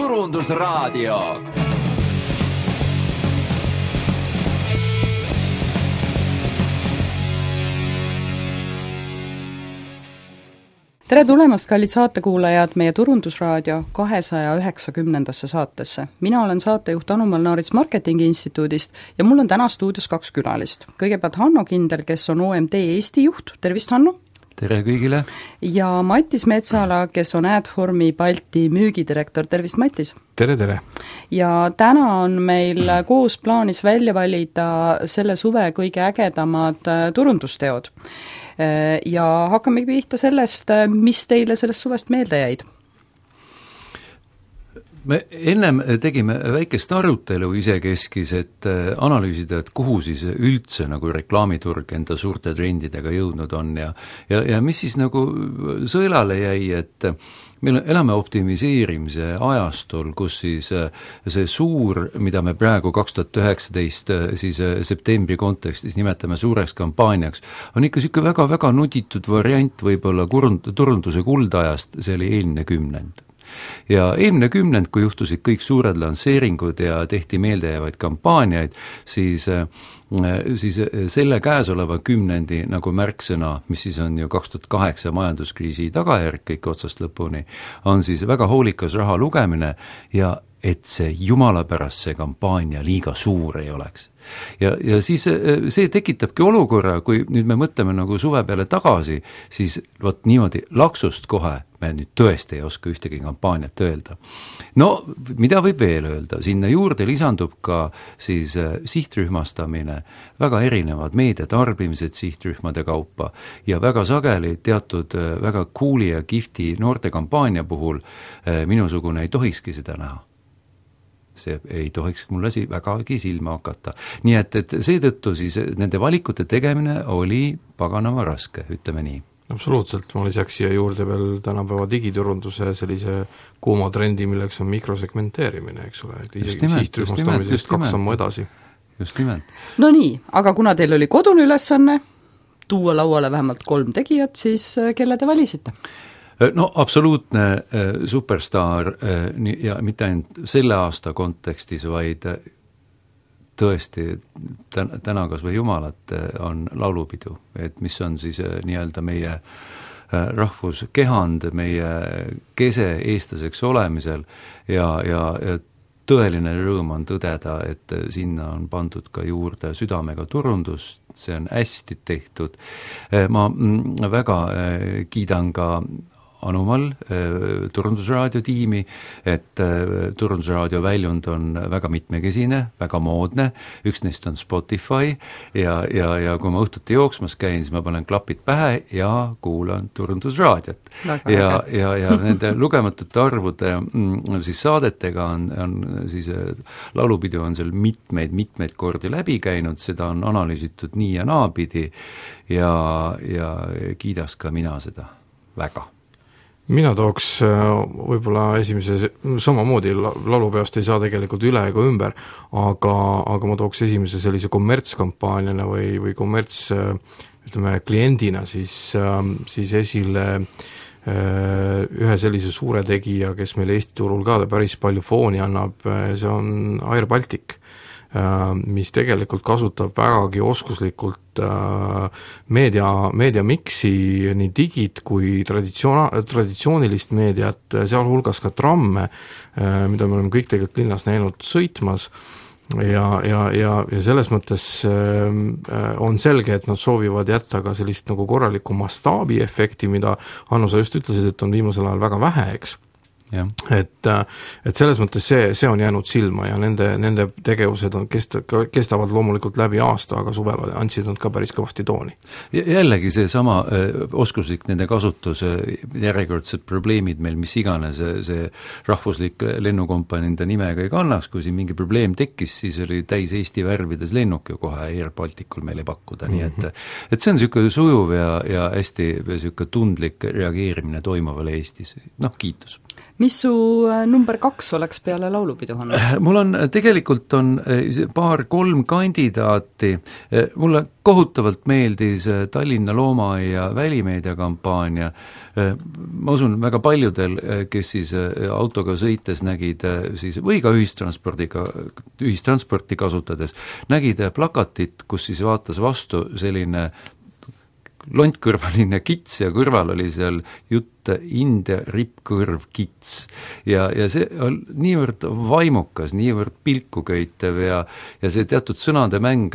Turundusraadio. Tere tulemast, kallid saatekuulajad, meie Turundusraadio 290. saatesse. Mina olen saatejuht Anu Malnaarits Marketingi Instituudist ja mul on täna stuudios 2 külalist. Kõigepealt Hanno Kindel, kes on OMD Eesti juht. Tervist, Hanno! Tere kõigile! Ja Mattis Metsala, kes on Adformi Balti müügidirektor. Tervist, Mattis! Tere, tere! Ja täna on meil koos plaanis välja valida selle suve kõige ägedamad turundusteod. Ja hakkame pihta sellest, mis teile sellest suvest meelde jäid? Me ennem tegime väikest arutelu isekeskis, et analüüsida, et kuhu siis üldse nagu reklaamiturg enda suurte trendidega jõudnud on ja mis siis nagu sõelale jäi, et meil elame optimiseerimise ajastul, kus siis see suur, mida me praegu 2019 siis septembri kontekstis nimetame suureks kampaaniaks, on ikka siuke väga-väga nuditud variant võib-olla turunduse kuldajast, see oli eelmine kümnend. Ja eelmine kümnend, kui juhtusid kõik suured lansseeringud ja tehti meeldejäävaid kampaaniaid, siis selle käesoleva kümnendi nagu märksõna, mis siis on ju 2008 majanduskriisi tagajärg kõik otsast lõpuni, on siis väga hoolikas raha lugemine ja et see jumala pärast see kampaania liiga suur ei oleks. Ja siis see tekitabki olukorra, kui nüüd me mõtleme nagu suve peale tagasi, siis võt niimoodi laksust kohe me nüüd tõesti ei oska ühtegi kampaaniat öelda. No, mida võib veel öelda? Sinna juurde lisandub ka siis sihtrühmastamine, väga erinevad meediatarbimised sihtrühmade kaupa ja väga sageli teatud väga cooli ja kihvti noorte kampaania puhul minusugune ei tohikski seda näha. See ei tohiks mulle vägagi silma hakata. Nii et seetõttu siis nende valikute tegemine oli paganama raske, ütleme nii. Absoluutselt, ma lisaks siia juurde veel tänapäeva digiturunduse sellise kuuma trendi, milleks on mikrosegmenteerimine, eks ole, et isegi sihtrühmastamisest 2 sammu edasi. Just nimelt. No nii, aga kuna teil oli kodune ülesanne tuua lauale vähemalt 3 tegijat, siis kelle te valisite? No absoluutne superstaar ja mitte ainult selle aasta kontekstis, vaid tõesti täna kas või jumalat on laulupidu, et mis on siis nii-öelda meie rahvuskehand, meie kese eestlaseks olemisel ja tõeline rõõm on tõdeda, et sinna on pandud ka juurde südamega turundust, see on hästi tehtud. Ma väga kiidan ka Anumal Turundusraadio tiimi, et Turundusraadio väljund on väga mitmekesine, väga moodne, üks neist on Spotify ja kui ma õhtuti jooksmas käin, siis ma panen klapid pähe ja kuulan Turundusraadiot. Ja nende lugematute arvude siis saadetega on siis laulupidu on seal mitmeid kordi läbi käinud, seda on analüüsitud nii ja naapidi ja kiidas ka mina seda väga. Mina tooks võib-olla esimese, samamoodi laulupeost ei saa tegelikult üle ega ümber, aga ma tooks esimese sellise kommertskampaaniana või kommerts, ütleme, kliendina siis esile ühe sellise suure tegija, kes meil Eesti turul ka päris palju fooni annab, see on Air Baltic, mis tegelikult kasutab vägagi oskuslikult meediamiksi nii digit kui traditsioonilist meediat, sealhulgas ka tramme, mida me oleme kõik tegelikult linnas näinud sõitmas ja selles mõttes on selge, et nad soovivad jätta ka sellist nagu korralikku mastaabi efekti, mida Hanno, sa just ütlesid, et on viimasel ajal väga vähe, eks. Ja. Et selles mõttes see on jäänud silma ja nende tegevused kestavad loomulikult läbi aasta, aga suvel andsid nad ka päris kõvasti tooni. Jällegi see sama oskuslik nende kasutus, järjekordsed probleemid meil, mis iganes see rahvuslik lennukompanii enda nimega ei kannaks, kui siin mingi probleem tekkis, siis oli täis Eesti värvides lennuk ju kohe Air Balticul meile pakkuda, nii et see on niisugune sujuv ja hästi niisugune tundlik reageerimine toimuvale Eestis, kiitus. mis su number 2 oleks peale laulupidu, Hanno? Mul on, tegelikult on 2-3 kandidaati, mulle kohutavalt meeldis Tallinna Loomaaia välimeediakampaania, ma usun väga paljudel, kes siis autoga sõites nägid siis, või ka ühistransporti kasutades, nägid plakatit, kus siis vaatas vastu selline lontkõrvaline kits ja kõrval oli seal jutt India rippkõrv kits ja see on niivõrd vaimukas, niivõrd pilkuköitev ja see teatud sõnade mäng,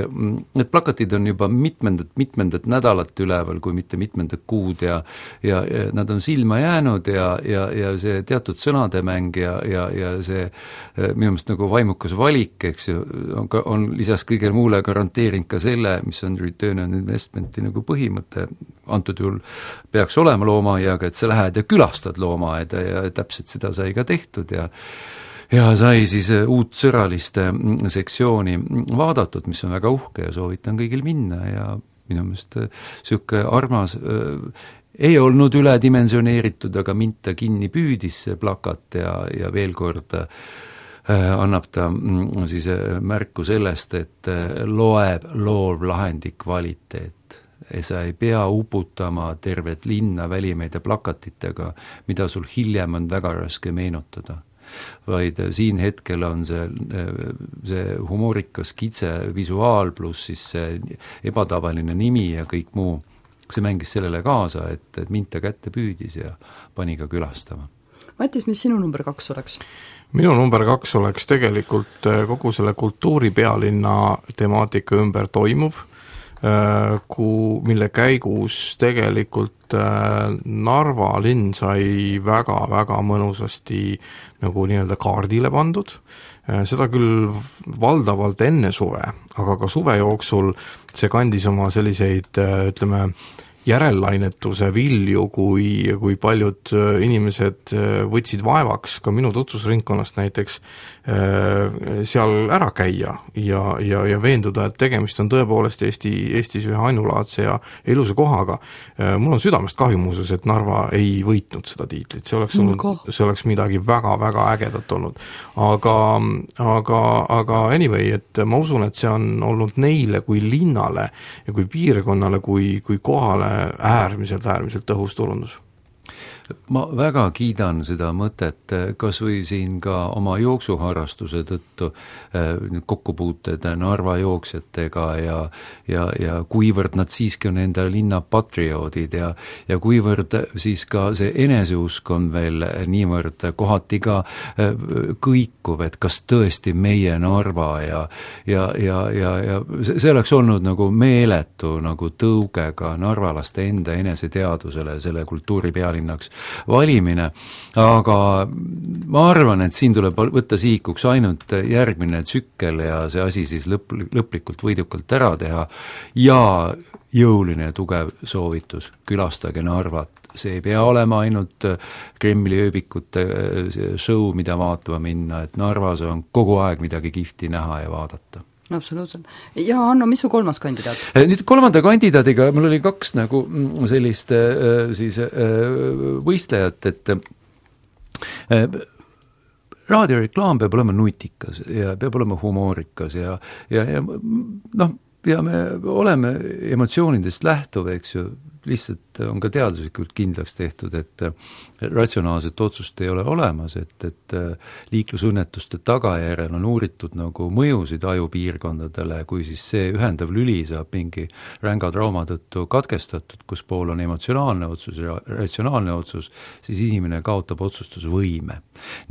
need plakatid on juba mitmendat nädalat üleval, kui mitte mitmendat kuud ja nad on silma jäänud ja see teatud sõnade mäng ja see minu meelest nagu vaimukas valik, eks ju, on lisaks kõigele muule garanteerinud ka selle, mis on return on investmenti nagu põhimõte, antud juhul peaks olema loomaaiaga, et sa lähed ja külastad loomaaeda ja täpselt seda sai ka tehtud ja sai siis uut sõraliste sektsiooni vaadatud, mis on väga uhke ja soovitan kõigil minna ja minu meelest sihuke armas ei olnud üledimensioneeritud, aga mind ta kinni püüdis see plakat ja veel kord annab ta siis märku sellest, et loeb loovlahendi kvaliteet. Sa ei pea uputama tervet linna välimeedia plakatitega, mida sul hiljem on väga raske meenutada. Vaid siin hetkel on see humoorikas kitse visuaal pluss siis see ebatavaline nimi ja kõik muu. See mängis sellele kaasa, et mind ta kätte püüdis ja pani ka külastama. Matis, mis sinu number 2 oleks? Minu number 2 oleks tegelikult kogu selle kultuuripealinna temaatika ümber toimuv, mille käigus tegelikult Narva linn sai väga-väga mõnusasti nagu nii-öelda kaardile pandud, seda küll valdavalt enne suve, aga ka suve jooksul see kandis oma selliseid, ütleme, järellainetuse vilju, kui paljud inimesed võtsid vaevaks ka minu tutvusringkonnast näiteks seal ära käia ja veenduda, et tegemist on tõepoolest Eestis ühe ainulaadse ja ilusa kohaga. Mul on südamest kahju muuseas, et Narva ei võitnud seda tiitlit, see oleks midagi väga-väga ägedat olnud. Aga anyway, et ma usun, et see on olnud neile kui linnale ja kui piirkonnale, kui kohale äärmiselt tõhus turundus. Ma väga kiidan seda mõtet, kas või siin ka oma jooksuharrastuse tõttu kokkupuuted Narva jooksjatega ja kuivõrd nad siiski on enda linna patrioodid ja kuivõrd siis ka see eneseusk on veel niivõrd kohati ka kõikuv, et kas tõesti meie Narva ja see oleks olnud nagu meeletu nagu tõugega narvalaste enda eneseteadusele selle kultuuripealinnaks valimine, aga ma arvan, et siin tuleb võtta sihikuks ainult järgmine tsükkel ja see asi siis lõplikult võidukalt ära teha ja jõuline ja tugev soovitus, külastage Narvat. See ei pea olema ainult Kremli ööbikute show, mida vaatama minna, et Narvas on kogu aeg midagi kihvti näha ja vaadata. Absoluutselt. Ja Hanno, mis su 3. kandidaat? Nüüd 3. kandidaadiga mul oli 2 nagu sellist siis võistlejat, et raadioreklaam peab olema nutikas ja peab olema humoorikas ja noh, ja me oleme emotsioonidest lähtuv, eks ju, lihtsalt on ka teaduslikult kindlaks tehtud, et ratsionaalset otsust ei ole olemas, et liiklusõnnetuste tagajärjel on uuritud nagu mõjusid ajupiirkondadele, kui siis see ühendav lüli saab mingi ränga trauma tõttu katkestatud, kus pool on emotsionaalne otsus ja ratsionaalne otsus, siis inimene kaotab otsustusvõime.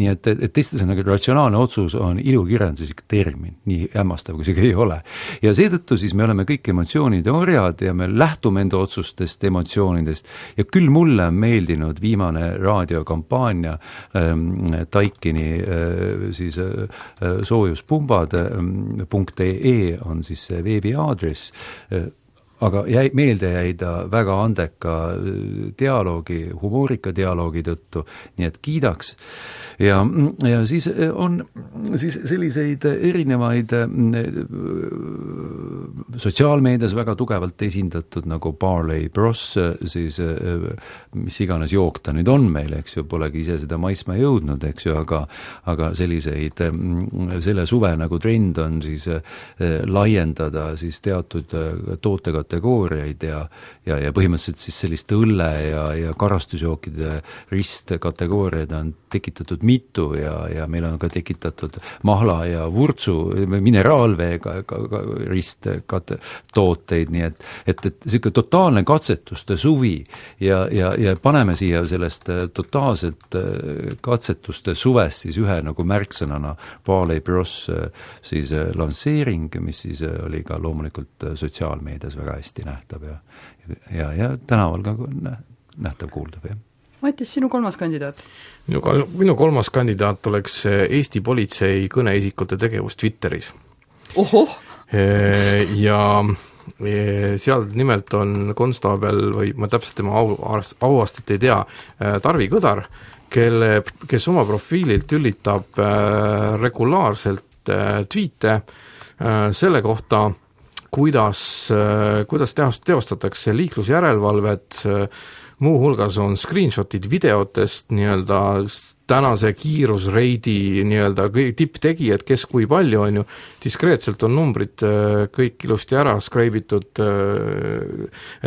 Nii et teiste sõnaga ratsionaalne otsus on ilukirjanduslik termin, nii hämmastav kui see ei ole. Ja seetõttu siis me oleme kõik emotsioonide orjad ja me lähtume enda otsustest, emotsioonidest ja küll mulle on meeldinud viimane raadiokampaania Taikini siis soojuspumbad.ee on siis see veebiaadress, aga meelde jäi ta väga andeka dialoogi, humoorika dialoogi tõttu, nii et kiidaks. ja siis on siis selliseid erinevaid sotsiaalmeedias väga tugevalt esindatud nagu Barley Bros, siis mis iganes jook ta nüüd on meil, eks ju, polegi ise seda maisma jõudnud, eks ju, aga selliseid, selle suve nagu trend on siis laiendada siis teatud tootekategooriaid ja põhimõtteliselt siis sellist õlle ja karastusjookide ristkategooriaid on tekitatud mitu ja meil on ka tekitatud mahla ja vurtsu mineraalveega risttooteid, nii et selline totaalne katsetuste suvi ja paneme siia sellest totaalselt katsetuste suvest siis ühe nagu märksõnana Barley Bros siis lansseering, mis siis oli ka loomulikult sotsiaalmeedias väga hästi nähtav ja tänaval ka nähtav kuuldav, jah. Matis, sinu kolmas kandidaat? Minu kolmas kandidaat oleks Eesti politsei kõneisikute tegevus Twitteris. Ohoh! Ja seal nimelt on konstaabel, või ma täpselt tema auastet ei tea, Tarvi Kõdar, kes oma profiililt ülitab regulaarselt tweete selle kohta, kuidas teostatakse liiklusjärelevalvet, muuhulgas on screenshotid videotest nii-öelda tänase kiirusreidi nii-öelda tipptegijad, kes kui palju on ju, diskreetselt on numbrid kõik ilusti ära skreibitud,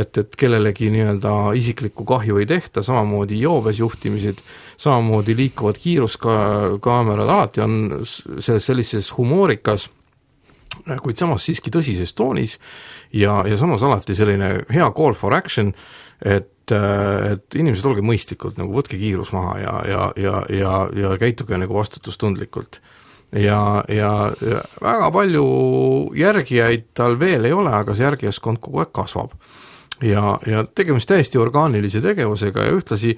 et kellelegi nii-öelda isiklikku kahju ei tehta, samamoodi joobes juhtimised, samamoodi liikuvad kiiruskaamerad, alati on sellises humoorikas, kuid samas siiski tõsises toonis ja samas alati selline hea call for action, et inimesed olge mõistlikult, nagu võtke kiirus maha ja käituge nagu vastutustundlikult. Ja väga palju järgijaid tal veel ei ole, aga see järgijaskond kogu aeg kasvab. Ja tegemist täiesti orgaanilise tegevusega ja ühtlasi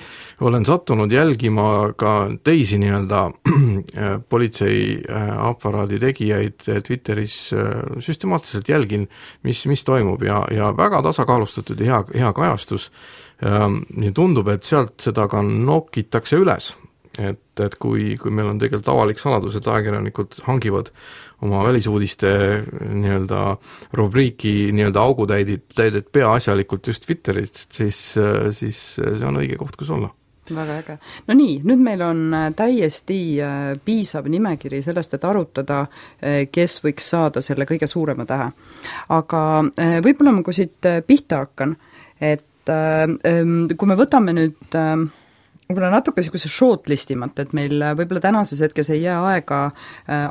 olen sattunud jälgima ka teisi nii-öelda politsei aparaadi tegijaid Twitteris, süstemaatiliselt jälgin, mis toimub ja väga tasakaalustatud ja hea kajastus. Nii tundub, et sealt seda ka nokitakse üles, et kui meil on tegelikult avalik saladus, et ajakirjanikud hangivad oma välisuudiste nii-öelda rubriiki nii-öelda augutäidet peaasjalikult just Twitterist, siis see on õige koht, kus olla. Väga äge. No nii, nüüd meil on täiesti piisav nimekiri sellest, et arutada, kes võiks saada selle kõige suurema tähe. Aga võib-olla ma kui siit pihta hakkan, et kui me võtame nüüd võib-olla natuke niisuguse shortlistimat, et meil võib-olla tänases hetkes ei jää aega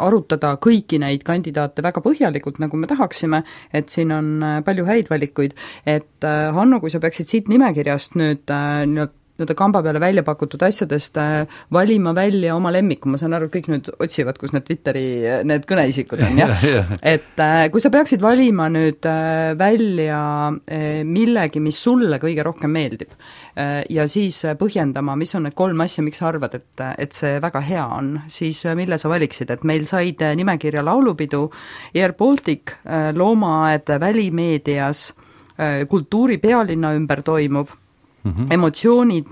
arutada kõiki neid kandidaate väga põhjalikult, nagu me tahaksime, et siin on palju häid valikuid, et Hanno, kui sa peaksid siit nimekirjast nüüd kamba peale välja pakutud asjadest valima välja oma lemmiku, ma saan aru, kõik nüüd otsivad, kus need Twitteri need kõneisikud on, jah? Et kui sa peaksid valima nüüd välja millegi, mis sulle kõige rohkem meeldib ja siis põhjendama, mis on need 3 asja, miks sa arvad, et see väga hea on, siis mille sa valiksid, et meil said nimekirja laulupidu, Air Baltic, loomaaed välimeedias, kultuuri pealinna ümber toimuv, emotsioonid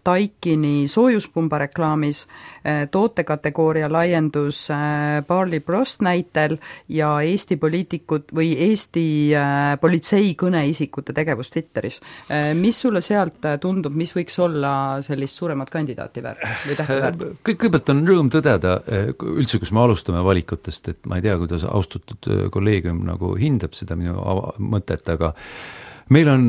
Taikini soojuspumba reklaamis, tootekategooria laiendus Barley Bros näitel ja Eesti poliitikud või Eesti politsei kõneisikute tegevus Twitteris. Mis sulle sealt tundub, mis võiks olla sellist suuremat kandidaati väärt või tähti väärt? Kõigepealt on rõõm tõdeda, üldse kus me alustame valikutest, et ma ei tea, kuidas austatud kolleegium nagu hindab seda minu mõtet, aga meil on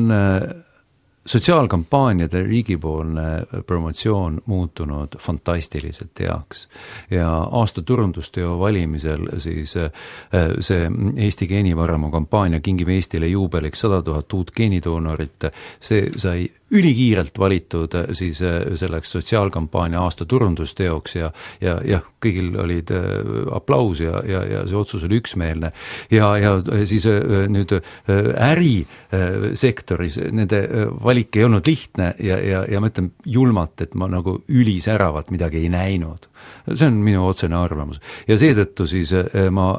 sotsiaalkampaaniade riigipoolne promotsioon muutunud fantastiliselt heaks ja aasta turundusteo valimisel siis see Eesti geenivaramu kampaania Kingime Eestile juubeliks 100 000 uut geenidoonorit, see sai ülikiirelt valitud siis selleks sotsiaalkampaania aasta turundusteoks ja kõigil olid aplaus ja see otsus oli üksmeelne ja siis nüüd ärisektoris nende valik ei olnud lihtne ja ma ütlen julmalt, et ma nagu ülisäravat midagi ei näinud. See on minu otsene arvamus. Ja seetõttu siis ma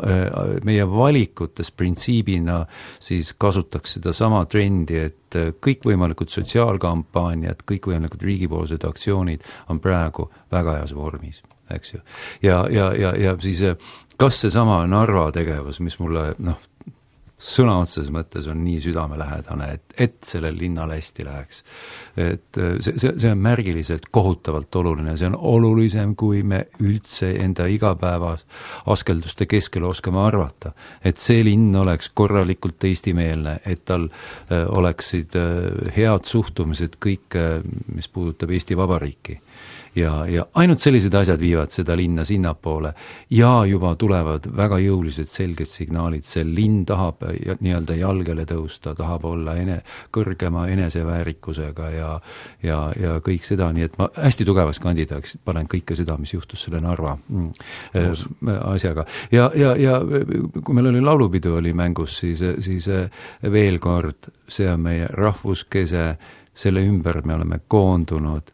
meie valikutes printsiibina siis kasutaks seda sama trendi, et et kõikvõimalikud sotsiaalkampaaniad, kõikvõimalikud riigipoolsed aktsioonid on praegu väga heas vormis, eks ju. Ja siis kas see sama Narva tegevus, mis mulle sõna otseses mõttes on nii südamelähedane, et sellel linnal hästi läheks. Et see on märgiliselt kohutavalt oluline, see on olulisem, kui me üldse enda igapäevas askelduste keskel oskame arvata. Et see linn oleks korralikult eestimeelne, et tal oleksid head suhtumised kõik, mis puudutab Eesti Vabariiki. Ja ainult sellised asjad viivad seda linna sinnapoole ja juba tulevad väga jõulised selged signaalid, see linn tahab nii-öelda jalgele tõusta, tahab olla kõrgema eneseväärikusega ja kõik seda, nii et ma hästi tugevaks kandidaaks panen kõike seda, mis juhtus selle Narva asjaga. Ja kui meil oli laulupidu oli mängus, siis veel kord, see on meie rahvuskese, selle ümber me oleme koondunud,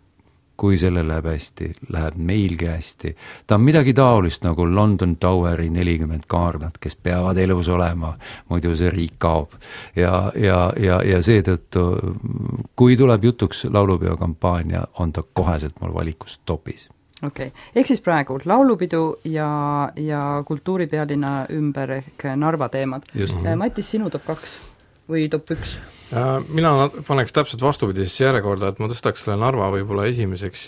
kui selle läheb hästi, läheb meilgi hästi. Ta on midagi taolist nagu London Toweri 40 kaarnat, kes peavad elus olema, muidu see riik kaob. Ja seetõttu, kui tuleb jutuks laulupeo-kampaania, on ta koheselt mul valikus topis. Okei. Ehk siis praegu laulupidu ja kultuuripealinna ümber ehk Narva teemad. Matis, sinu top 2 või top 1? Mina paneks täpselt vastupidisesse järjekorda, et ma tõstaks selle Narva võib-olla esimeseks,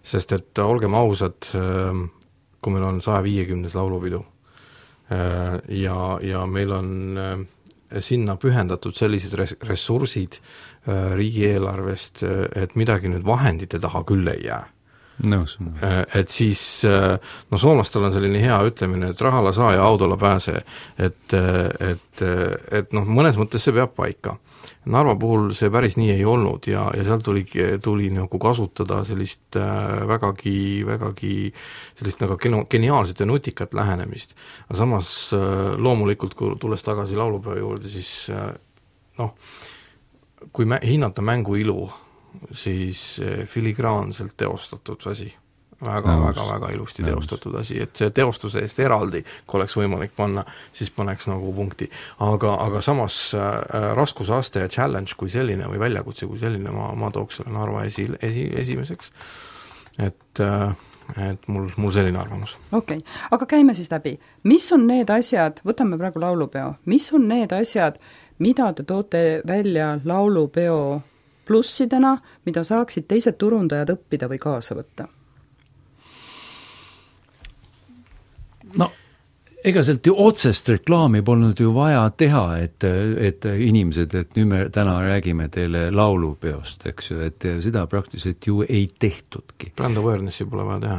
sest et olgem ausad, kui meil on 150 laulupidu ja meil on sinna pühendatud sellised ressursid riigieelarvest, et midagi nüüd vahendite taha küll ei jää. Nõus. Et siis, soomlastel on selline hea ütlemine, et rahalla saa ja autolla pääse, et mõnes mõttes see peab paika. Narva puhul see päris nii ei olnud ja seal tuli nagu kasutada sellist vägagi sellist nagu geniaalset ja nutikat lähenemist. Aga samas loomulikult, kui tulles tagasi laulupeo juurde, siis kui hinnata mängu ilu, siis filigraanselt teostatud asi. Väga ilusti teostatud asi, et see teostuse eest eraldi, kui oleks võimalik panna, siis paneks nagu punkti. Aga samas raskusaste ja challenge kui selline või väljakutse kui selline, ma tooks selle Narva esimeseks. Et mul selline arvamus. Okei, aga käime siis läbi. Mis on need asjad, võtame praegu laulupeo, mis on need asjad, mida te toote välja laulupeo plussidena, mida saaksid teised turundajad õppida või kaasa võtta? Ega sealt ju otsest reklaami polnud ju vaja teha, et inimesed, et nüüd me täna räägime teile laulupeost, eks ju, et seda praktiliselt ju ei tehtudki. Brand awarenessi pole vaja teha.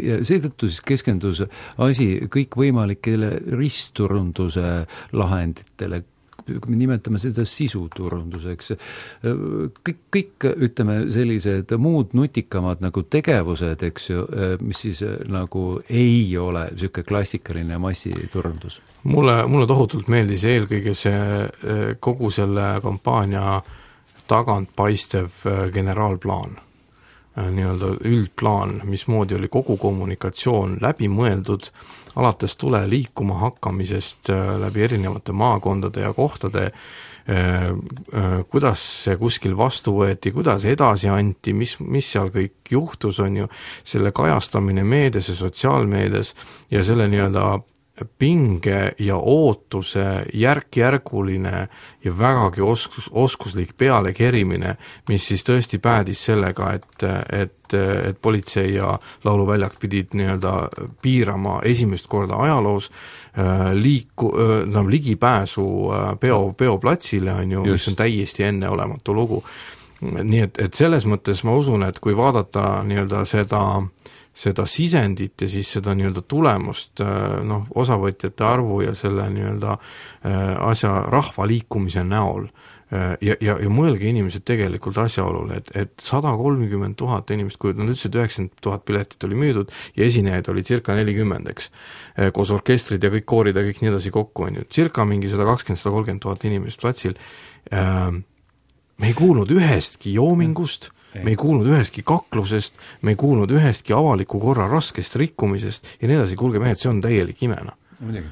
Ja seetõttu siis keskendus asi kõikvõimalikele ristturunduse lahenditele, kui me nimetame seda sisuturunduseks, kõik ütleme sellised muud nutikamad nagu tegevused, eks ju, mis siis nagu ei ole selline klassikaline massiturundus. Mulle tohutult meeldis eelkõige see kogu selle kampaania tagant paistev generaalplaan, nii-öelda üldplaan, mismoodi oli kogu kommunikatsioon läbi mõeldud, alates tule liikuma hakkamisest läbi erinevate maakondade ja kohtade, kuidas see kuskil vastu võeti, kuidas edasi anti, mis seal kõik juhtus, on ju, selle kajastamine meedias ja sotsiaalmeedias ja selle nii-öelda pinge ja ootuse järk-järguline ja vägagi oskuslik pealekerimine, mis siis tõesti päädis sellega, et politsei ja lauluväljak pidid nii-öelda piirama esimest korda ajaloos ligipääsu peoplatsile, on ju, mis on täiesti enneolematu lugu. Nii et selles mõttes ma usun, et kui vaadata nii-öelda seda sisendit ja siis seda nii-öelda tulemust, osavõtjate arvu ja selle nii-öelda asja rahvaliikumise näol ja mõelge inimesed tegelikult asjaolule, et 130 000 inimest, kui nad ütlesid 90 000 piletit oli müüdud ja esinejaid oli circa 40, eks, koos orkestrid ja kõik koorid ja kõik nii edasi kokku, on ju, circa mingi 120-130 000 inimest platsil, me ei kuulnud ühestki joomingust, me ei kuulnud ühestki kaklusest, me ei kuulnud ühestki avaliku korra raskest rikkumisest ja nii edasi, kuulge mehed, see on täielik imena. Muidugi.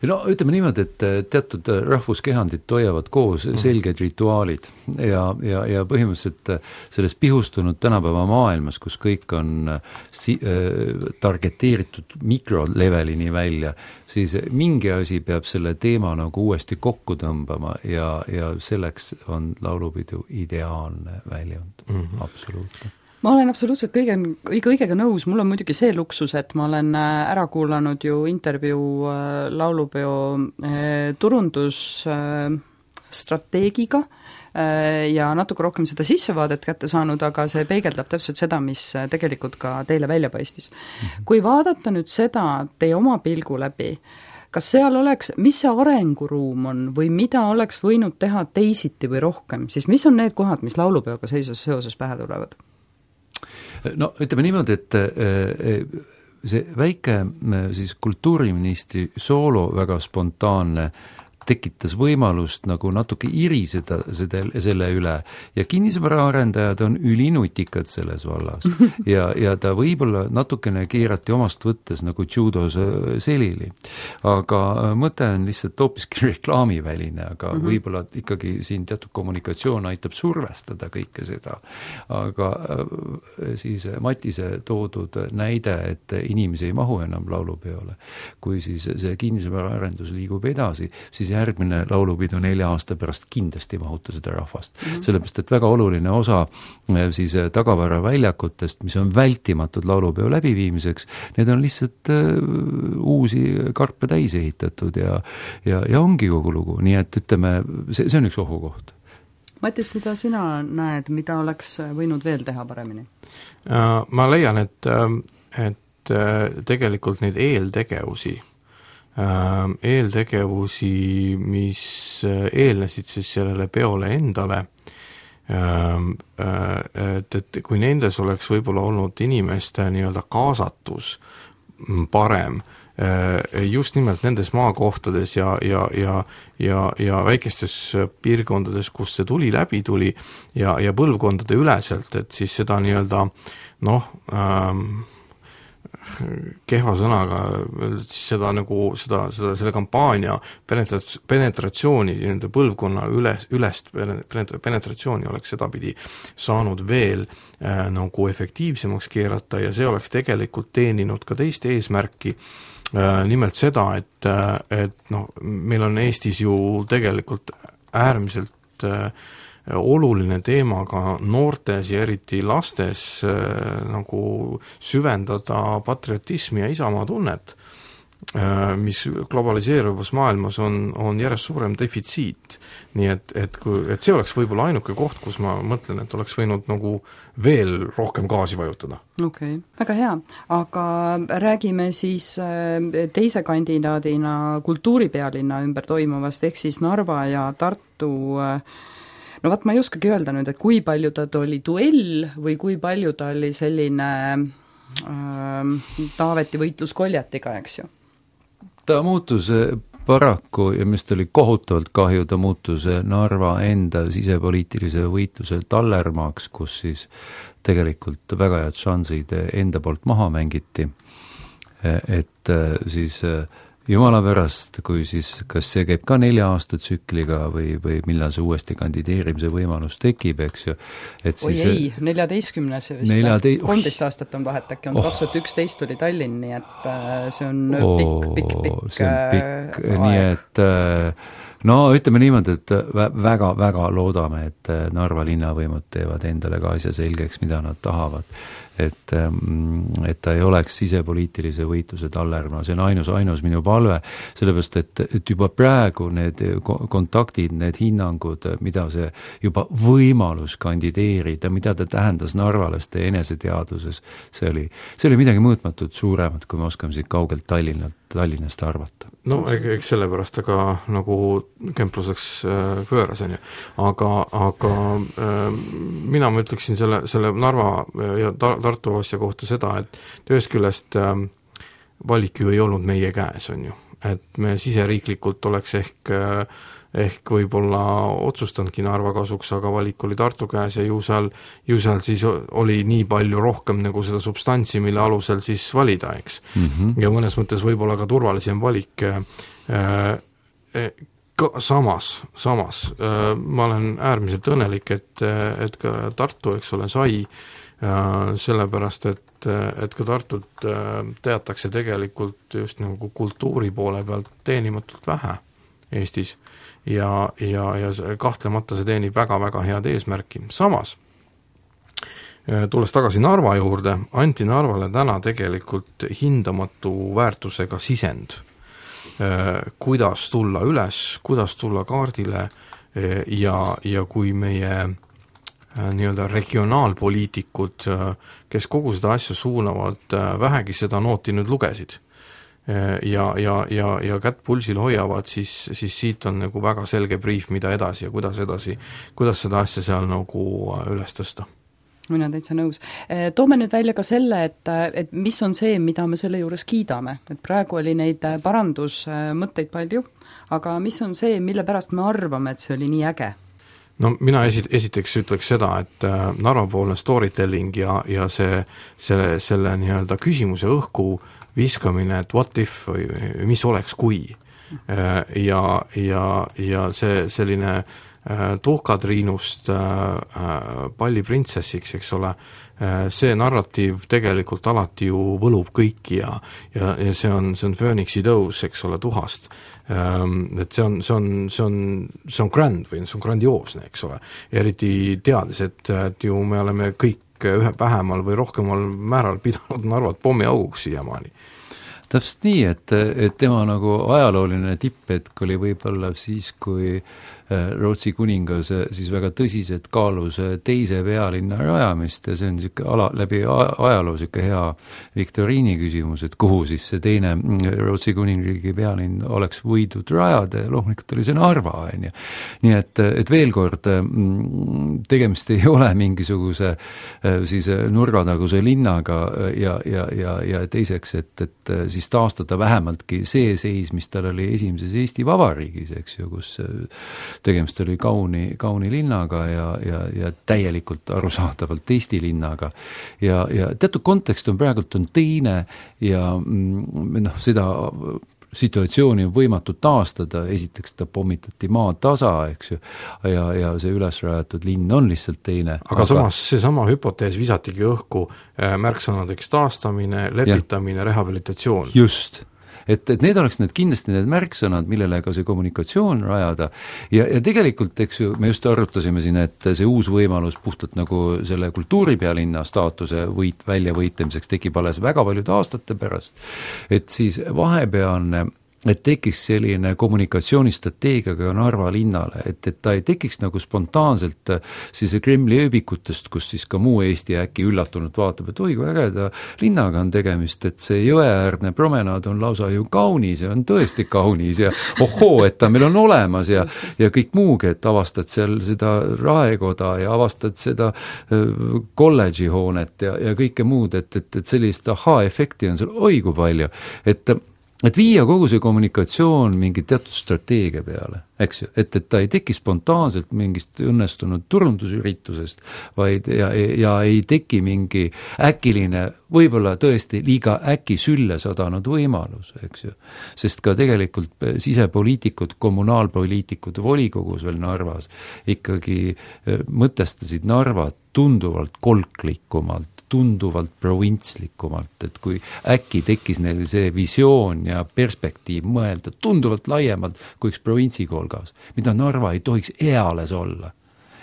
No ütleme niimoodi, et teatud rahvuskehandid hoiavad koos selged rituaalid ja põhimõtteliselt selles pihustunud tänapäeva maailmas, kus kõik on targeteeritud mikrolevelini välja, siis mingi asi peab selle teema nagu uuesti kokku tõmbama ja selleks on laulupidu ideaalne väljund, absoluutselt. Ma olen absoluutselt kõigega nõus, mul on muidugi see luksus, et ma olen ära kuulanud ju intervjuu laulupeo turundusstrateegiga ja natuke rohkem seda sissevaadet kätte saanud, aga see peegeldab täpselt seda, mis tegelikult ka teile välja paistis. Kui vaadata nüüd seda teie oma pilgu läbi, kas seal oleks, mis see arenguruum on või mida oleks võinud teha teisiti või rohkem, siis mis on need kohad, mis laulupeoga seoses pähe tulevad? No ütleme niimoodi, et see väike siis kultuuriministri soolo väga spontaanne tekitas võimalust nagu natuke iriseda selle üle ja kinnisvaraarendajad on ülinutikad selles vallas ja ta võib-olla natukene keerati omast võttes nagu judos selili. Aga mõte on lihtsalt hoopiski reklaamiväline, aga võib-olla ikkagi siin teatud kommunikatsioon aitab survestada kõike seda. Aga siis Matise toodud näide, et inimesi ei mahu enam laulupeole, kui siis see kinnisvaraarendus liigub edasi, siis järgmine laulupidu 4 aasta pärast kindlasti mahuta seda rahvast. Sellepärast, et väga oluline osa siis tagavara väljakutest, mis on vältimatud laulupeo läbiviimiseks, need on lihtsalt uusi karpe täis ehitatud ja ongi kogu lugu. Nii et ütleme, see on üks ohukoht. Mattis, mida sina näed, mida oleks võinud veel teha paremini? Ma leian, et tegelikult neid eeltegevusi, mis eelnesid siis sellele peole endale, et kui nendes oleks võib-olla olnud inimeste nii-öelda kaasatus parem, just nimelt nendes maakohtades ja väikestes piirkondades, kus see läbi tuli ja põlvkondade üleselt, et siis seda nii-öelda kehva sõnaga, siis seda nagu selle kampaania penetratsiooni, nende põlvkonna ülest penetratsiooni oleks sedapidi saanud veel nagu efektiivsemaks keerata ja see oleks tegelikult teeninud ka teist eesmärki, nimelt seda, et meil on Eestis ju tegelikult äärmiselt oluline teema ka noortes ja eriti lastes nagu süvendada patriotismi ja isamaa tunnet, mis globaliseeruvas maailmas on järjest suurem defitsiit. Nii et see oleks võib-olla ainuke koht, kus ma mõtlen, et oleks võinud nagu veel rohkem gaasi vajutada. Okei, väga hea. Aga räägime siis teise kandidaadina kultuuripealinna ümber toimuvast, ehk siis Narva ja Tartu. No vaat ma ei oskagi öelda nüüd, et kui palju ta oli duell või kui palju ta oli selline Taaveti võitlus Koljatiga, eks ju? Ta muutus paraku ja mis oli kohutavalt kahju, ta muutus Narva enda sisepoliitilise võitluse tallermaaks, kus siis tegelikult väga head šansid enda poolt maha mängiti, et siis jumala pärast, kui siis, kas see käib ka 4 aasta tsükliga või millal see uuesti kandideerimise võimalus tekib, eks ju. Oi ei, 14 vist, 13 aastat on vahet, äkki on 2011 oli Tallinn, nii et see on pikk see on pikk, nii et no ütleme niimoodi, et väga loodame, et Narva linnavõimud teevad endale ka asja selgeks, mida nad tahavad. Et ta ei oleks sisepoliitilise võitluse tallerma, see on ainus minu palve, sellepärast, et juba praegu need kontaktid, need hinnangud, mida see juba võimalus kandideerida, mida ta tähendas narvalaste eneseteaduses, see oli midagi mõõtmatut suuremat, kui me oskame siit kaugelt Tallinnast arvata. No eks sellepärast aga nagu kempluseks pööras, aga mina ütleksin selle Narva ja Tartu asja kohta seda, et ühest küljest valik ju ei olnud meie käes, on ju. Et me siseriiklikult oleks ehk ehk võib-olla otsustanudki Narva kasuks, aga valik oli Tartu käes ja ju seal siis oli nii palju rohkem nagu seda substantsi, mille alusel siis valida, eks. Ja mõnes mõttes võib-olla ka turvalisem valik. Samas ma olen äärmiselt õnnelik, et ka Tartu, eks ole, sai sellepärast, et ka Tartut teatakse tegelikult just nagu kultuuri poole pealt teenimatult vähe Eestis ja kahtlemata see teenib väga-väga head eesmärki. Samas, tulles tagasi Narva juurde, anti Narvale täna tegelikult hindamatu väärtusega sisend, kuidas tulla üles, kuidas tulla kaardile ja kui meie nii-öelda regionaalpoliitikud, kes kogu seda asja suunavad, vähegi seda nooti nüüd lugesid ja kätt pulsil hoiavad, siis siit on nagu väga selge briif, mida edasi ja kuidas seda asja seal nagu üles tõsta. Mina täitsa nõus. Toome nüüd välja ka selle, et mis on see, mida me selle juures kiidame. Et praegu oli neid parandusmõtteid palju, aga mis on see, mille pärast me arvame, et see oli nii äge? No mina esiteks ütleks seda, et Narva-poolne storytelling ja selle nii-öelda küsimuse õhku viskamine, et what if või mis oleks kui ja see selline tuhkatriinust palliprintsessiks, eks ole, see narratiiv tegelikult alati ju võlub kõiki ja see on Phoenixi tõus, eks ole, tuhast. Et see on grand või see on grandioosne, eks ole. Eriti teades, et ju me oleme kõik ühe vähemal või rohkemal määral pidanud Narvat pommiauguks siiamaani. Täpselt nii, et tema nagu ajalooline tipphetk oli võib-olla siis, kui Rootsi kuningas siis väga tõsiselt kaalus teise pealinna rajamist ja see on läbi ajaloo hea viktoriini küsimus, et kuhu siis see teine Rootsi kuningriigi pealinn oleks võidud rajada ja loomulikult oli see Narva, on ju. Nii et veel kord, tegemist ei ole mingisuguse siis nurgataguse linnaga ja teiseks, et siis taastada vähemaltki see seis, mis tal oli esimeses Eesti Vabariigis, eks ju, kus tegemist oli kauni linnaga ja täielikult arusaadavalt Eesti linnaga. Ja teatud kontekst on praegult on teine ja seda situatsiooni on võimatu taastada, esiteks ta pommitati maatasa, eks ju, ja see ülesrajatud linn on lihtsalt teine. Aga samas seesama hüpotees visatigi õhku märksõnadeks taastamine, lepitamine, rehabilitatsioon. Just. Et need oleks kindlasti need märksõnad, millele ka see kommunikatsioon rajada ja tegelikult, eks ju, me just arutasime siin, et see uus võimalus puhtalt nagu selle kultuuripealinna staatuse väljavõitlemiseks tekib alles väga paljude aastate pärast, et siis vahepealne et tekiks selline kommunikatsioonistrateegiaga Narva linnale, et ta ei tekiks nagu spontaanselt siis Kremli ööbikutest, kus siis ka muu Eesti äkki üllatunult vaatab, et oi, kui ägeda linnaga on tegemist, et see jõeäärne promenaad on lausa ju kaunis ja on tõesti kaunis ja ohoo, et ta meil on olemas ja kõik muugi, et avastad seal seda raekoda ja avastad seda kolledži hoonet ja kõike muud, et sellist aha-efekti on seal oi kui palju, et viia kogu see kommunikatsioon mingi teatud strateegia peale, eks ju, et ta ei teki spontaanselt mingist õnnestunud turundusüritusest, vaid ja ei teki mingi äkiline, võib-olla tõesti liiga äkki sülle sadanud võimalus, eks ju. Sest ka tegelikult sisepoliitikud, kommunaalpoliitikud volikogus veel Narvas ikkagi mõtestasid Narvat tunduvalt kolklikumalt, tunduvalt provintslikumalt, et kui äkki tekkis neil see visioon ja perspektiiv mõelda tunduvalt laiemalt kui üks provintsikolgas, mida Narva ei tohiks eales olla.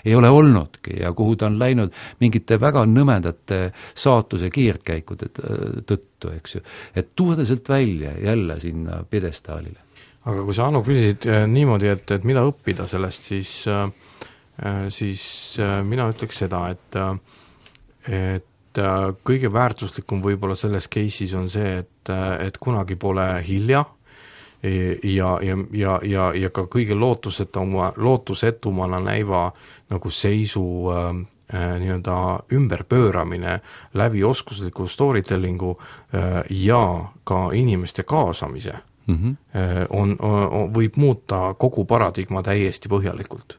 Ei ole olnudki ja kuhu ta on läinud mingite väga nõmedate saatuse keerdkäikude tõttu, eks ju. Et tuua ta sealt välja jälle sinna pjedestaalile. Aga kui sa, Anu, küsisid niimoodi, et mida õppida sellest, siis mina ütleks seda, et kõige väärtuslikum võib-olla selles case'is on see, et kunagi pole hilja ja ka kõige lootusetumana näiva nagu seisu nii-öelda ümberpööramine läbi oskusliku storytellingu ja ka inimeste kaasamise võib muuta kogu paradigma täiesti põhjalikult.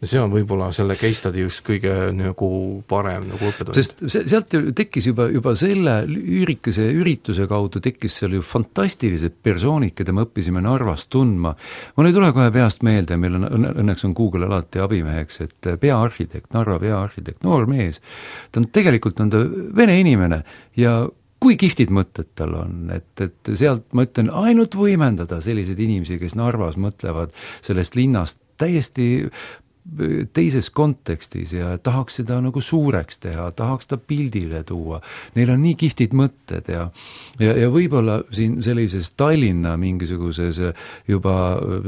Ja see on võib-olla selle case study just kõige nagu parem nagu õppetund. Sest sealt tekkis juba selle üürikese ürituse kaudu tekkis seal ju fantastilised persoonid, keda me õppisime Narvas tundma. Mul ei tule kohe peast meelde, meil õnneks on Google alati abimeheks, et peaarhitekt, Narva peaarhitekt, noor mees, ta on tegelikult ta vene inimene ja kui kihvtid mõtted tal on, et sealt ma ütlen ainult võimendada selliseid inimesi, kes Narvas mõtlevad sellest linnast täiesti teises kontekstis ja tahaks seda nagu suureks teha, tahaks ta pildile tuua. Neil on nii kihvtid mõtted ja võib-olla siin sellises Tallinna mingisuguses juba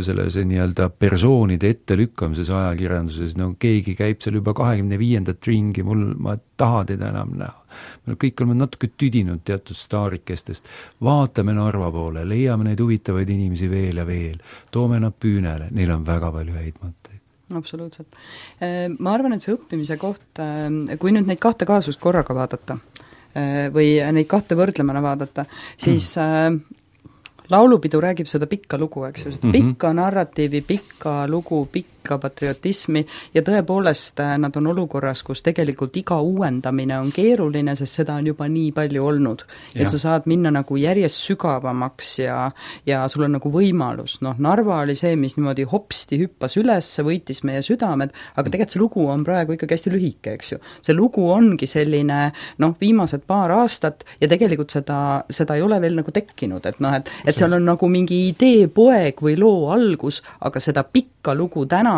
sellise nii-öelda persoonide ettelükkamises ajakirjanduses, no keegi käib seal juba 25. ringi, ma ei taha teda enam näha. Me kõik oleme natuke tüdinud teatud staarikestest, vaatame Narva poole, leiame neid huvitavaid inimesi veel ja veel, toome nad püünele, neil on väga palju häid mõtteid. Absoluutselt. Ma arvan, et see õppimise koht, kui nüüd neid kahte kaasust korraga vaadata või neid kahte võrdlemana vaadata, siis laulupidu räägib seda pikka lugu, eks ju, pikka narratiivi, pikka lugu, pikka patriotismi ja tõepoolest nad on olukorras, kus tegelikult iga uuendamine on keeruline, sest seda on juba nii palju olnud. Ja sa saad minna nagu järjest sügavamaks ja sul on nagu võimalus. Narva oli see, mis niimoodi hopsti hüppas üles, võitis meie südamed, aga tegelikult see lugu on praegu ikkagi hästi lühike, eks ju. See lugu ongi selline, viimased paar aastat ja tegelikult seda ei ole veel nagu tekkinud, et seal on nagu mingi idee poeg või loo algus, aga seda pikka lugu tänaseks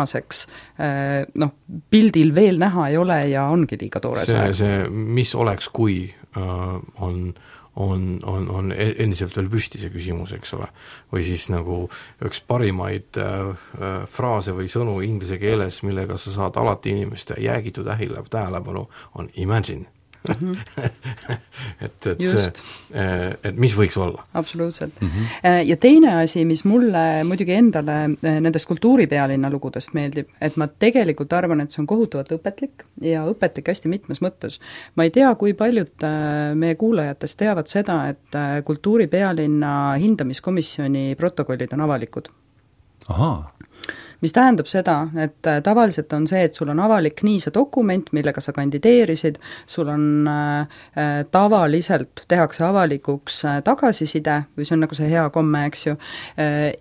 pildil veel näha ei ole ja ongi liiga toores. See, mis oleks, kui on endiselt veel püsti see küsimus, eks ole. Või siis nagu üks parimaid fraase või sõnu inglise keeles, millega sa saad alati inimeste jäägitud tähelepanu, on imagine. et mis võiks olla? Absoluutselt. Ja teine asi, mis mulle muidugi endale nendest kultuuripealinna lugudest meeldib, et ma tegelikult arvan, et see on kohutavalt õpetlik ja õpetlik hästi mitmes mõttes. Ma ei tea, kui paljud meie kuulajatest teavad seda, et kultuuripealinna hindamiskomisjoni protokollid on avalikud. Ahaa. Mis tähendab seda, et tavaliselt on see, et sul on avalik nii see dokument, millega sa kandideerisid, sul on tavaliselt tehakse avalikuks tagasiside, või see on nagu see hea komme, eks ju,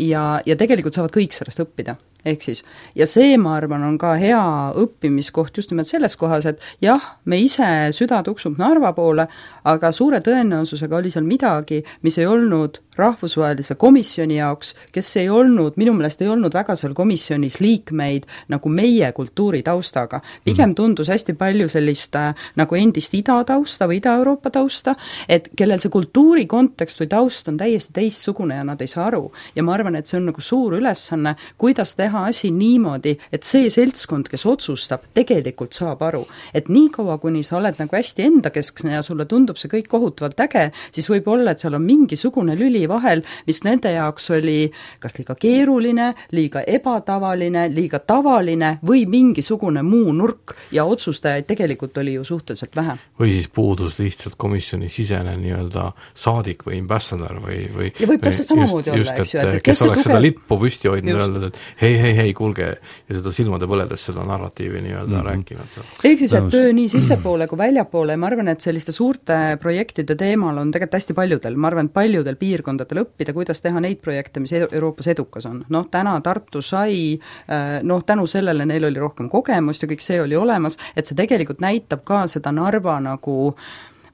ja tegelikult saavad kõik sellest õppida. Ehk siis, ja see, ma arvan, on ka hea õppimiskoht just nimelt selles kohas, et jah, me ise süda tuksub Narva poole, aga suure tõenäosusega oli seal midagi, mis ei olnud rahvusvahelise komisjoni jaoks, kes ei olnud, minu meelest ei olnud väga seal komisjonis liikmeid nagu meie kultuuritaustaga. Pigem tundus hästi palju sellist nagu endist Ida-tausta või Ida-Euroopa tausta, et kellel see kultuuri kontekst või taust on täiesti teistsugune ja nad ei saa aru. Ja ma arvan, et see on nagu suur ülesanne, kuidas teha asi niimoodi, et see seltskond, kes otsustab, tegelikult saab aru. Et nii kaua, kuni sa oled nagu hästi endakeskne ja sulle tundub see kõik kohutavalt äge, siis võib olla, et seal on mingisugune lüli vahel, mis nende jaoks oli kas liiga keeruline, liiga ebatavaline, liiga tavaline või mingisugune muu nurk ja otsustajaid tegelikult oli ju suhteliselt vähe. Või siis puudus lihtsalt komisjoni sisene nii-öelda saadik või ambassador või ja võib täpselt samamoodi olla, eks ju. Kes oleks seda lippu püsti hoidnud ja öelnud, et hei, kuulge, ja seda silmade põledes seda narratiivi nii-öelda rääkinud. Ehk siis, et töö nii sissepoole kui väljapoole, ma arvan, et selliste suurte projektide teemal on tegelikult hästi paljudel, ma arvan, paljudel piirkondadel õppida, kuidas teha neid projekte, mis Euroopas edukas on. Täna Tartu sai, tänu sellele neil oli rohkem kogemust ja kõik see oli olemas, et see tegelikult näitab ka seda Narva nagu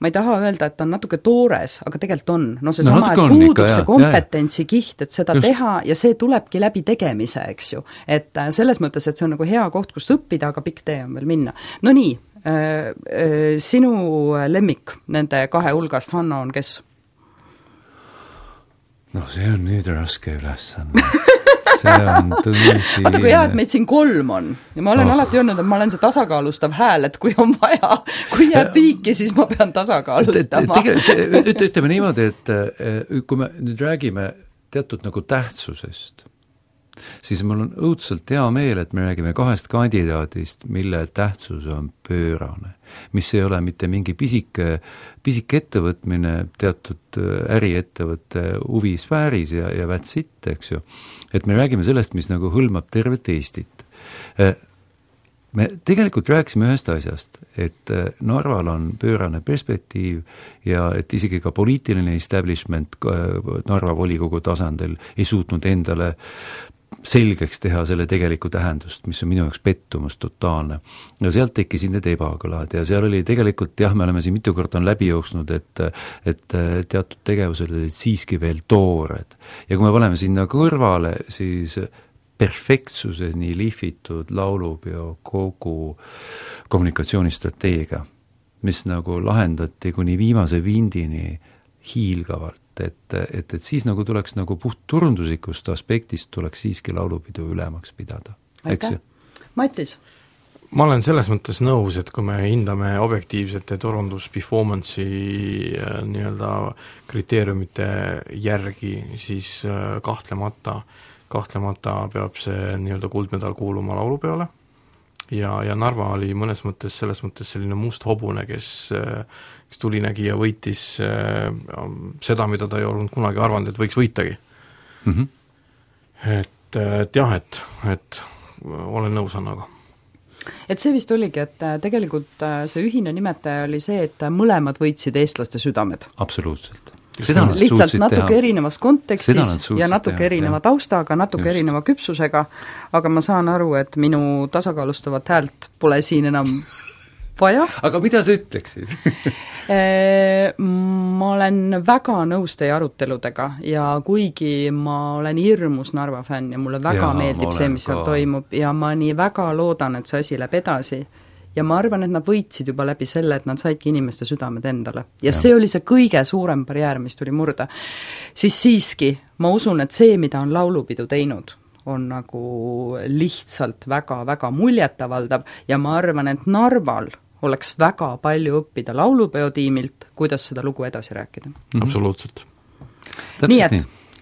ma ei taha öelda, et on natuke toores, aga tegelikult on. See sama, et puudub see kompetentsi kiht, et seda teha ja see tulebki läbi tegemise, eks ju. Et selles mõttes, et see on nagu hea koht, kust õppida, aga pikk tee on veel minna. No nii, sinu lemmik nende kahe hulgast, Hanno, on kes? See on nüüd raske ülesanne. See on tõsi. Vaata, kui hea, et meid siin 3 on. Ja ma olen alati öelnud, et ma olen see tasakaalustav hääl, et kui on vaja, kui jääb viiki, siis ma pean tasakaalustama. Ütleme niimoodi, et kui me nüüd räägime teatud nagu tähtsusest, siis mul on õudselt hea meel, et me räägime 2 kandidaadist, mille tähtsus on pöörane, mis ei ole mitte mingi pisike ettevõtmine teatud äriettevõtte huvisfääris ja that's it, eks ju. Et me räägime sellest, mis nagu hõlmab tervet Eestit. Me tegelikult rääkisime ühest asjast, et Narval on pöörane perspektiiv ja et isegi ka poliitiline establishment Narva volikogu tasandil ei suutnud endale selgeks teha selle tegelikku tähendust, mis on minu jaoks pettumus totaalne. Ja sealt tekkisid need ebakõlad ja seal oli tegelikult, jah, me oleme siin mitu korda on läbi jooksnud, et teatud tegevused olid siiski veel toored. Ja kui me paneme sinna kõrvale, siis perfektsuseni lihvitud laulupeo kogu kommunikatsioonistrateegia, mis nagu lahendati kuni viimase vindini hiilgavalt, et siis nagu tuleks nagu puht turunduslikust aspektist tuleks siiski laulupidu ülemaks pidada. Aitäh. Matis? Ma olen selles mõttes nõus, et kui me hindame objektiivsete turundus-performance'i nii-öelda kriteeriumite järgi, siis kahtlemata peab see nii-öelda kuldmedal kuuluma laulupeole ja Narva oli mõnes mõttes selles mõttes selline must hobune, kes tuli nägi ja võitis seda, mida ta ei olnud kunagi arvanud, et võiks võitagi. Et jah, et olen nõus Annaga. Et see vist oligi, et tegelikult see ühine nimetaja oli see, et mõlemad võitsid eestlaste südamed. Absoluutselt. Lihtsalt natuke erinevas kontekstis ja natuke erineva taustaga, natuke erineva küpsusega, aga ma saan aru, et minu tasakaalustavat häält pole siin enam vaja. Aga mida sa ütleksid? Ma olen väga nõus teie aruteludega ja kuigi ma olen hirmus Narva fänn ja mulle väga meeldib see, mis seal toimub ja ma nii väga loodan, et see asi läheb edasi. Ja ma arvan, et nad võitsid juba läbi selle, et nad saidki inimeste südamed endale. Ja see oli see kõige suurem barjäär, mis tuli murda. Siis siiski, ma usun, et see, mida on laulupidu teinud, on nagu lihtsalt väga-väga muljetavaldav ja ma arvan, et Narval oleks väga palju õppida laulupeotiimilt, kuidas seda lugu edasi rääkida. Absoluutselt. Nii et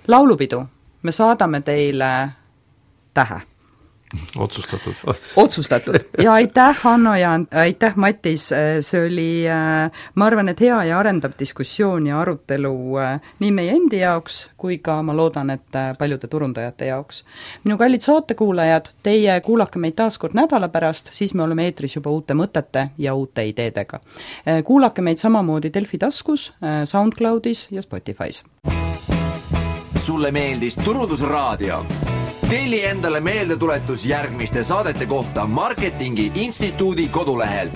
laulupidu, me saadame teile tähe. Otsustatud. Ja aitäh, Hanno, ja aitäh, Matis, see oli, ma arvan, et hea ja arendav diskussioon ja arutelu nii meie endi jaoks, kui ka ma loodan, et paljude turundajate jaoks. Minu kallid saatekuulajad, teie kuulake meid taas kord nädala pärast, siis me oleme eetris juba uute mõtete ja uute ideedega. Kuulake meid samamoodi Delfi taskus, SoundCloudis ja Spotify's. Sulle meeldis Turundusraadio? Telli endale meeldetuletus järgmiste saadete kohta Marketingi Instituudi kodulehelt.